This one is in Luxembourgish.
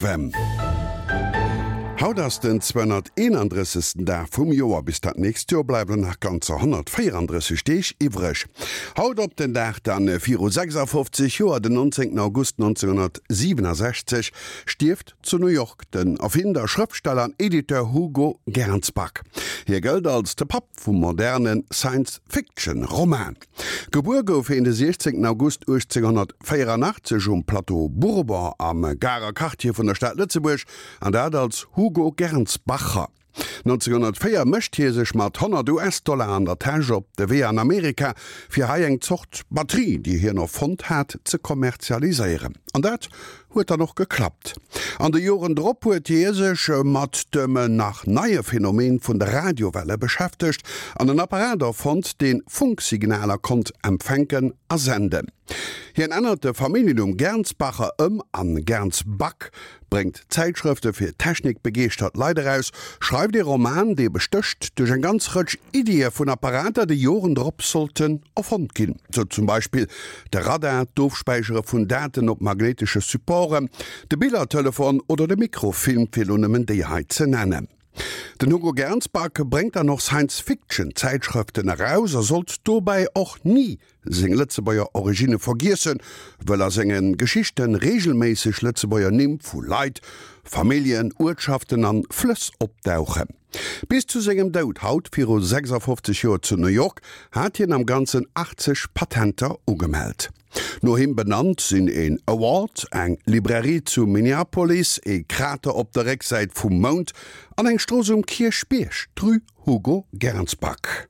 Wem. Haut ass den 231. Dag vum Joer. Bis dat nächst Joer bleiwen nach ganzer 134 Deeg iwwreg. Haut op den Dag dann viru 56 Joer, den 19 August 1967, stierft zu New York den Erfinder, Schrëftsteller an Editeur Hugo Gernsback. Hie gëllt als de Papp vum moderne Science-Fiction-Roman. Gebuer gouf hien de 16 August 1884 um Plateau Bourbon am Garer Quartier vun der Stad Lëtzebuerg, an dat als Hugo Gernsbacher. 1904 mécht hie sech mat 100 US-Dollar an der Täsch op de Wee an Amerika, fir hei eng Zort Batterie, déi hien erfonnt hat, ze kommerzialiséieren. An dat Huet dann och geklappt. An de Joren drop huet hie sech mat dem nach neie Phänomen vun de Radiowelle beschäftegt an en Apparat erfonnt, dee Funksignaler konnt empfänken a senden. Hien ännert de Familljennumm Gernsbacher ëm an Gernsback, bréngt Zäitschrëfte fir technikbegeeschtert Leit eraus, schreift ee Roman, dee bestécht duerch eng ganz Rëtsch Iddie vun Apparater, déi Joren drop sollten erfonnt ginn, sou zum Beispill De Radar, d'Ofspäichere vun Daten op magnéitesche Supporten, de Billertelefon oder de Mikrofilm, fir elo nëmmen déi hei ze nennen. Den Hugo Gernsback bréngt dann och Science-Fiction-Zäitschrëften eraus a sollt dobäi och ni seng Lëtzebuerger Originne vergiessen, wëll a senge Geschichte reegelméisseg Lëtzebuerger Nimm vu Leit, Familljen, Uertschaften an Flëss opdauchen. Bis zu sengem Doud haut viru 56 Joer zu New York hat hien am Ganzen 80 Patenter ugemellt. No him benannt sinn een Award, eng Librairie zu Minneapolis, ee Krater op der Récksäit vum Mound an eng Strooss um Kierchbierg, d'Rue Hugo Gernsback.